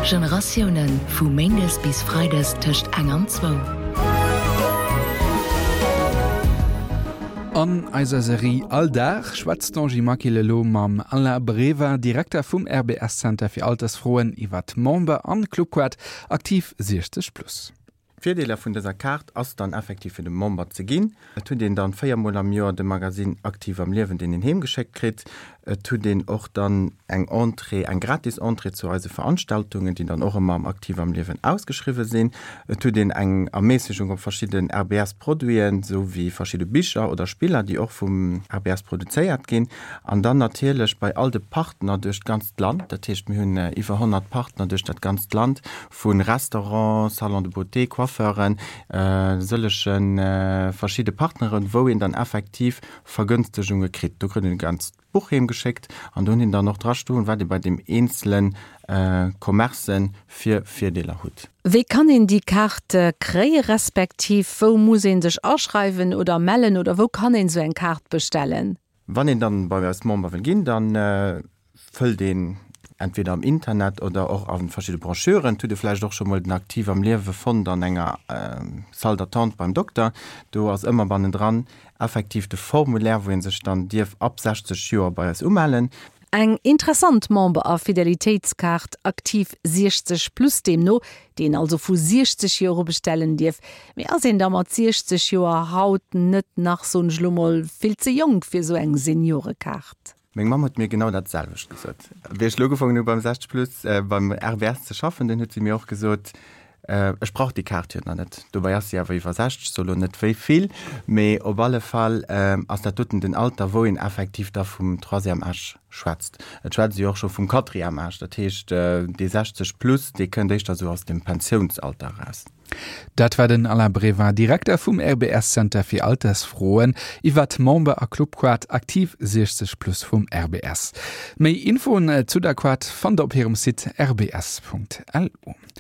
Generatiounen, vu méindes bis freides tëscht eng an zwou. An eiser Serie All Dag schwätzt d'Angie Maquil elo mam Alain Breva, Direkter vum RBS Center fir Altersfroen, iwwer d'Member an Clubquart Aktiv 60 Plus. D'Virdeeler vun dëser Kaart ass dann effektiv fir de Member ze ginn. Et huet een dann 4 mol am Joer de Magasinn Aktiv am Liewen, deen een heem geschéckt kritt. Et huet een och dann eng Entrée, eng gratis Entrée zu eise Veranstaltungen, déi dann och ëmmer am Aktiv am Liewen ausgeschriwwe sinn. Et huet een eng Erméissegung op verschidden RBS-Produiten, sou wéi verschidde Bicher oder Spiller, déi och vum RBS produzéiert ginn. An dann natierlech bei all de Partner duerch d'ganzt Land, dat heescht mir hunn iwwer 100 Partner duerch dat ganzt Land, Vu Restaurant, Salon de beauté, Coiffeuren, sëllege verschidde Partneren, wou een dann effektiv Vergënstegunge kritt. Do kritt een e ganzt Buch heem geschéckt an do hunn een dann och dra stoen, wat ee bei deem eenzele Commerce fir Virdeeler hutt. Wéi kann een déi Kaart kréie respektiv wou muss ee sech aschreiwen oder mellen oder wou kann een esou eng Kaart bestellen? Wann een dann bei eis Member wëll ginn, dann fëllt een entweder am Internet oder och a verschidde Brochuren. Et hutt e vläicht och scho mol den Aktiv am Liewe fonnt an enger Salle d'attente beim Dokter. Do ass ëmmer bannendran effektiv de Formulaire, wou ee sech dann dierf ab 60 Joer bei eis umellen. Eng interessant Member a Fidelitéitskaart, Aktiv 60 plus deemno, déi een also vu 60 Joer u bestellen dierf. Mee ass een da mat 60 Joer haut net nach, soen ech lo mol, vill ze jonk fir esou eng Seniorekaart? Meng Mamm huet mir genau dat selwecht gesot. Wéi ech elo ugefaangen hu beim 60 plus, beim RBS ze schaffen, dunn huet si mir och gesot, Ech brauch déi Kaart jo nach net. Dobäi ass si awer iwwer 60, soe lo net wéi vill, mee op alle Fall ass dat doten den Alter, wou een effektiv da vum Troisième âge schwätzt. Et schwätzt ee jo och scho vum Quatrième âge, dat heescht dee 60 plus, dee kënnt éischter esou aus dem Pensiounsalter eraus. Dat war den Alain Brevin, Direkter vum RBS Center fir Altersfroen, iwwer d'Member a Clubquart Aktiv 60 plus vum RBS. Méi Infoen zu der Quart fannt der op hirem Site rbs.lu.